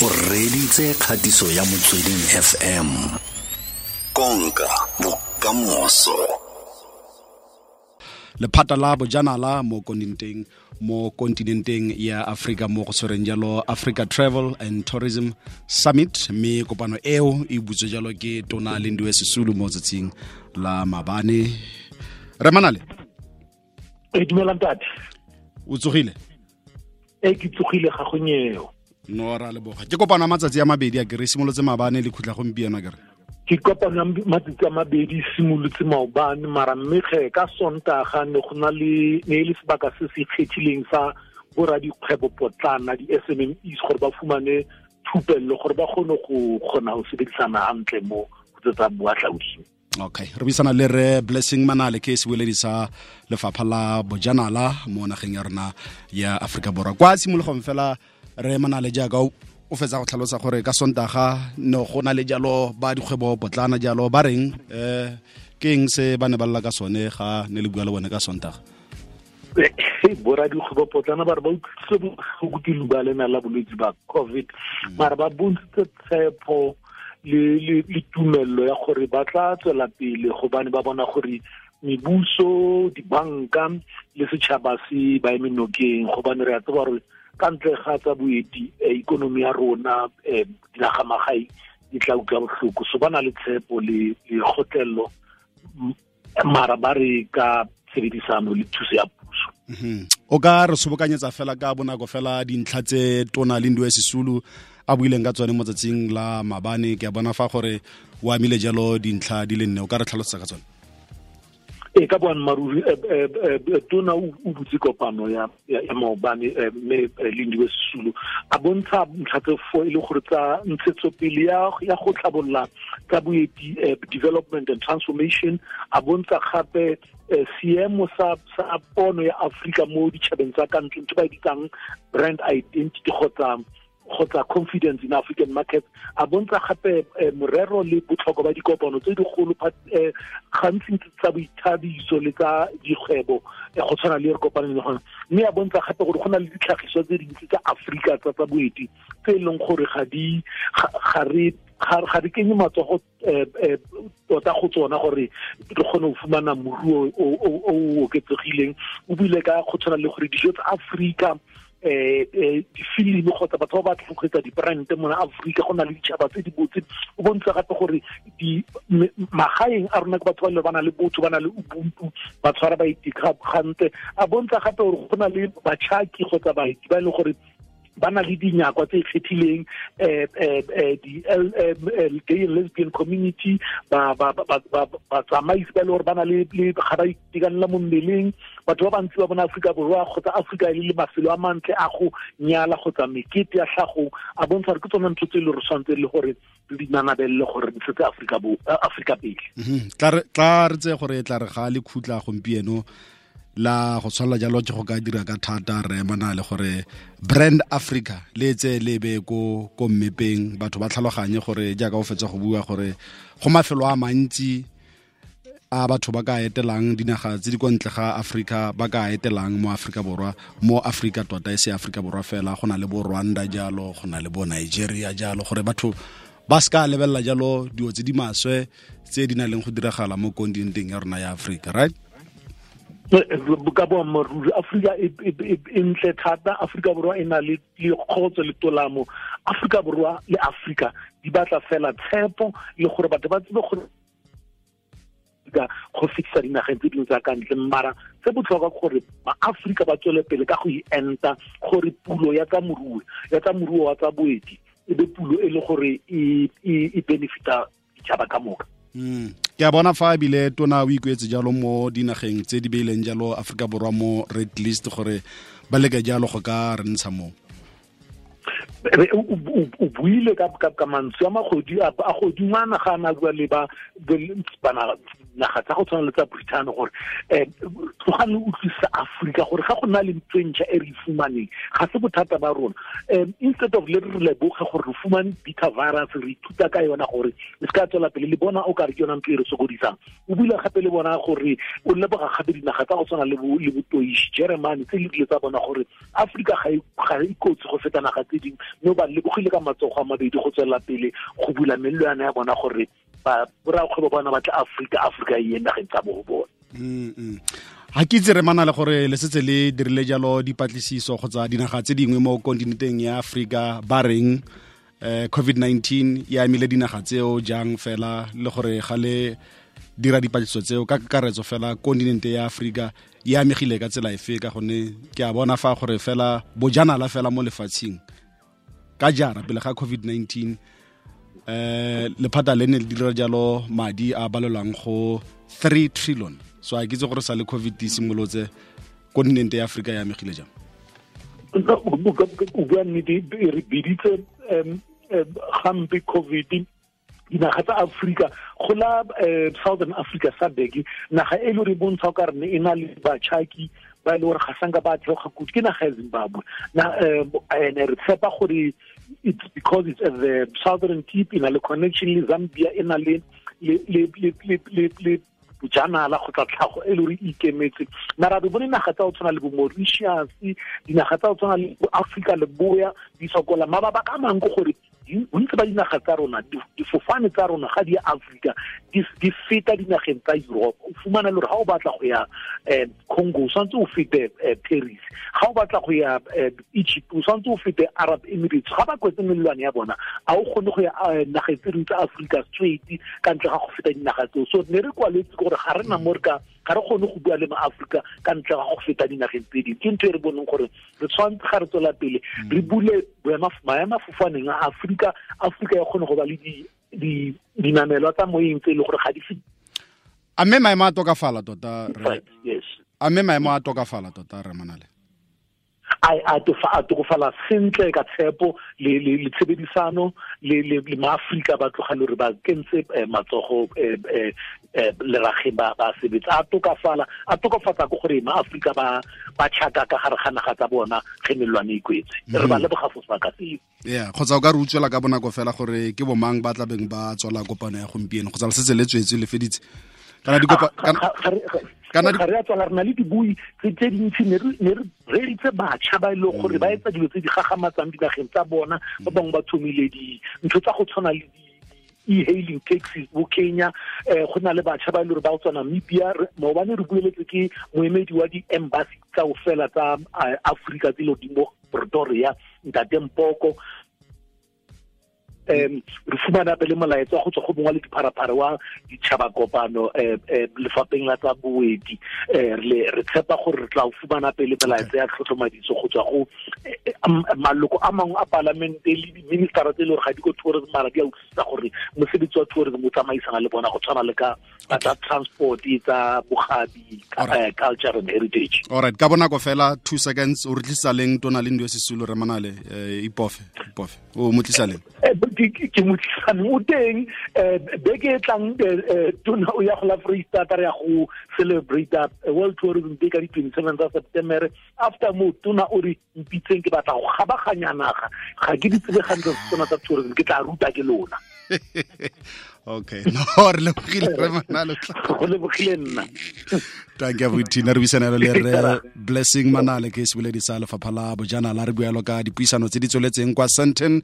O reditse kgatiso ya Motsweding FM. Konka bokamoso. Lephata la bojanala mo kontinenteng ya Afrika mo go tshwereng jalo Africa Travel and Tourism Summit, mme kopano eo e butswe jalo ke Tona Lindiwe Sisulu mo tsatsing la mabane. Re Manale. E dumela ntate. O tsogile? E ke tsogile ga gonyeo. No ra leboga. Ke kopano ya matsatsi a mabedi a kere simolotse mabane le khutla gompieno a kere. Ke kopano ya matsatsi a mabedi simolotse maobane mara mme ge ka Sontaga ne go na le ne le sebaka se se ikgethileng sa boradikgwebo potlana di-SMMEs gore ba fumane thupello gore ba kgone go kgona go sebedisana hantle mo go tsa boahlaodi. Okay, re buisana le re Blessing Manale ke sebueledi sa lefapha la bojanala mo nageng ya rona ya Afrika Borwa. Kwa tshimologong fela re Manale jaaka o fetsa go tlhalosa gore ka Sontaga no go na le jalo ba dikgwebo potlana jalo ba reng ke eng se ba ne ba lla ka sone ga ne le bua le bone ka Sontaga? Bora dikgwebo potlana ba re ba utlwisitse botlhoko ke leuba lena la bolwetse ba COVID, mara ba bontshitse tshepo le tumello ya gore ba tla tswela pele gobane ba bona gore mebuso, dibanka le setšhaba se ba eme nokeng, gobane re a tseba gore ka ntle ga tsa boeti ikonomi ya rona dinaga magae di tla utlwa botlhoko. So ba na le tshepo le kgotlello mara ba re ka tshebedisano le thuso ya puso. O ka re sobokanyetsa fela ka bonako fela dintlha tse Tona Lindiwe Sisulu a buileng ka tsone mo tsatsing la mabane? Ke a bona fa gore o amile jalo dintlha di le nne, o ka re tlhalosetsa ka tsone? E ka boammaaruri Tona o butse kopano ya maobane mme Lindiwe Sisulu a bontsha ntlha tse four e le gore tsa ntshetsopele ya go tlhabolla tsa boeti, development and transformation. A bontsha gape seemo sa pono ya Afrika mo ditšhabeng tsa ka ntle, ntho ba e bitsang brand identity kgotsa confidence in African markets. A bontsha gape morero le botlhokwa ba dikopano tse dikgolo gantsi tsa boithabiso le tsa dikgwebo go tshwana le re kopaneng le gona, mme a bontsha gape gore go na le ditlhagiswa tse dintsi tsa Afrika tsa boeti tse e leng gore ga re kenye matsogo tota go tsona gore re kgone go fumana moruo o oketsegileng. O buile ka go tshwana le gore dijo tsa Afrika, difilimi kgotsa batho ba batlang go etsa dibrand mona Afrika, go na le ditšhaba tse di botse. O bontsha gape gore magaeng a rona ke batho ba ba na le botho, ba na le ubuntu, ba tshwara baeti gantle. A bontsha gape gore go na le batšhaki kgotsa baeti ba e leng gore ba na le dinyakwa tse ikgethileng, di gay and lesbian community, batsamaisi ba e le gore ba na le ga ba itekanela mo mmeleng. Batho ba bantsi ba bona Afrika Borwa kgotsa Afrika e le mafelo a mantle a go nyala kgotsa mekete ya tlhagong. A bontsha gore ke tsone ntho tse e le gore tshwanetse le gore re di nanabelele gore re ntshetse Afrika pele. Tla re tseye gore tla re ga le khutla gompieno la go tshwanela jalo ke go ka dira ka thata re Manale gore brand Africa le tse le be ko mmepeng, batho ba tlhaloganye gore jaaka o fetsa go bua gore go mafelo a mantsi a batho ba ka etelang dinaga tse di kwa ntle ga Afrika, ba ka etelang mo Afrika Borwa, mo Afrika tota e se Afrika Borwa fela, go na le bo Rwanda jalo, go na le bo Nigeria jalo, gore batho ba se ka lebelela jalo dilo tse di maswe tse di nang le go diragala mo kontinenteng ya rona ya Afrika, right? Ka boammaaruri Afrika e ntle thata. Afrika Borwa e na le kgotso le tolamo. Afrika Borwa le Afrika di batla fela tshepo le gore batho ba tsebe gore go fetisa dinageng tse dingwe tsa ka ntle. Mara se botlhokwa gore ma-Afrika ba tswele pele ka go enta gore pulo ya tsa moruo wa tsa boeti e be pulo e le gore e benefita ditšhaba ka moka. Ke a bona fa ebile Tona o ikuetse jalo mo dinageng tse di beileng jalo Afrika Borwa mo red list gore ba leke jalo go ka re ntsha mo. O buile ka mantswe a magodingwana ga a na bua le ba dinaga tsa go tshwana le tsa Britain gore tlogang le utlwisisa Afrika gore ga go na le ntho e ntšha e re e fumaneng ga se bothata ba rona. Instead of le re leboge gore re fumane beta virus, re ithuta ka yona gore e se ka tswela pele, le bona o kare ke yona ntho e re sokodisang. O buile gape le bona gore o leboga gape dinaga tsa go tshwana le bo Toish, Germany, tse le dile tsa bona gore Afrika ga e kotsi go feta naga tse dingwe, mme ba lebogile ka matsogo a mabedi go tswela pele go bula melelwane ya bona gore ba borakgwebo bona ba tla Afrika, Afrika e ye nageng tsa bo bona. Ha ke itse re mana le gore le setse le dirile jalo dipatlisiso kgotsa dinaga tse dingwe mo kontinenteng ya Afrika ba reng COVID-19 e amile dinaga tseo jang fela, le gore ga le dira dipatlisiso tseo ka kakaretso fela kontinente ya Afrika e amegile ka tsela efe, ka gonne ke a bona fa gore fela bojanala fela mo lefatsheng ka jara pele ga COVID-19 lephata le ne le dira jalo madi a balelwang go 3 trillion. So a ke itse gore sa le COVID e simolotse kontinente ya Afrika e amegile jang. O bua nnete, re biditse gampe COVID dinaga tsa Afrika go la Southern Africa SADC, naga e le re bontsha ka re e na le batšhaki ba e le gore ga sanka ba theoga kudu ke naga ya Zimbabwe. Na ene re tshepa gore it's because it's at the southern tip, e na le connection le Zambia, e na le le bojanala kgotsa tlhago e le gore e ikemetse. Mara re bone naga tsa go tshwana le bo Mauritius, dinaga tsa go tshwana le bo Afrika Leboya di sokola. Mabaka a mangwe ke gore bontsi ba dinaga tsa rona, difofane tsa rona ga di ya Afrika di feta dinageng tsa Europe. O fumana le gore ga o batla go ya Congo o tshwanetse o fete Paris, ga o batla go ya Egypt o tshwanetse o fete Arab Emirates. Ga ba kwetse melelwane ya bona a o kgone go ya nageng tse dingwe tsa Afrika straight ka ntle ga go feta dinaga tseo. So ne re kwaletse gore ga re na mo re ka ga re kgone go bua le ma-Afrika ka ntle ga go feta dinageng tse dingwe. Ke ntho e re boneng gore re tshwanetse ga re tswela pele re bule maemafofaneng a Afrika, Afrika ya kgone go ba le dinamelwa tsa moyeng tse e leng gore ga di se. A mme maemo a tokafala tota? Yes. A mme maemo a tokafala tota, re Manale? A tokafala sentle ka tshepo le tshebedisano le ma-Afrika ba tloga le gore ba kentse matsogo lerageng ba sebetsa. A tokafala, a tokafatsa ke gore ma-Afrika ba tšhaka ka gare ga naga tsa bona ge melelwane e kwetse. Re ba leboga fo sebaka seo. Yeah, kgotsa o ka re utswela ka bonako fela gore ke bomang ba tlabeng ba tswala kopano ya gompieno, kgotsa le setse le tswetse le feditse? Kana dikopa kana re a tswala, re na le dibui tse dintsi, ne re reeditse batšha ba e leng gore ba etsa dilo tse di gagamatsang dinageng tsa bona. Ba bangwe ba thomile dintho tsa go tshwana le e-hailing taxis bo Kenya, go na le batšha ba e leng gore ba go tswa Namibia. Maobane re bueletse ke moemedi wa di-embassy tsa go fela tsa Afrika tse di mo Pretoria, Ntate Mpoko. Re fumana pele molaetsa go tswa go mongwe le dipharapara wa ditšhaba kopano lefapheng la tsa boeti. Re tshepa gore re tla fumana pele melaetsa ya tlhotlhomadiso go tswa go maloko a mangwe a palamente le di-ministera tse e le gore ga di ko tourism, mara di a utlwisisa gore mosebetsi wa tourism o tsamaisana le bona go tshwana le ka tsa transport, tsa bogabi, culture and heritage. All right, ka bonako fela 2 seconds, o re tlisa leng Tona Lindiwe Sisulu, re Manale? Ipofe o mo tlisa leng? Ke mo tlisane o teng beke e tlang. Tona o ya go la Freistata, re ya go celebrate World Tourism Day ka di-27 tsa September. After mo Tona o re mpitseng, ke batla go kgabaganya naga, ga ke di tsebe gantle tsona tsa tourism, ke tla ruta ke lona. Okay, no, re lebogile re Manale. Go lebogile nna. Thank you Tina, re buisana le re Blessing Manale ke seboledi sa lefapha la bojanala, re bualo ka dipuisano tse di tsweletseng kwa Sandton.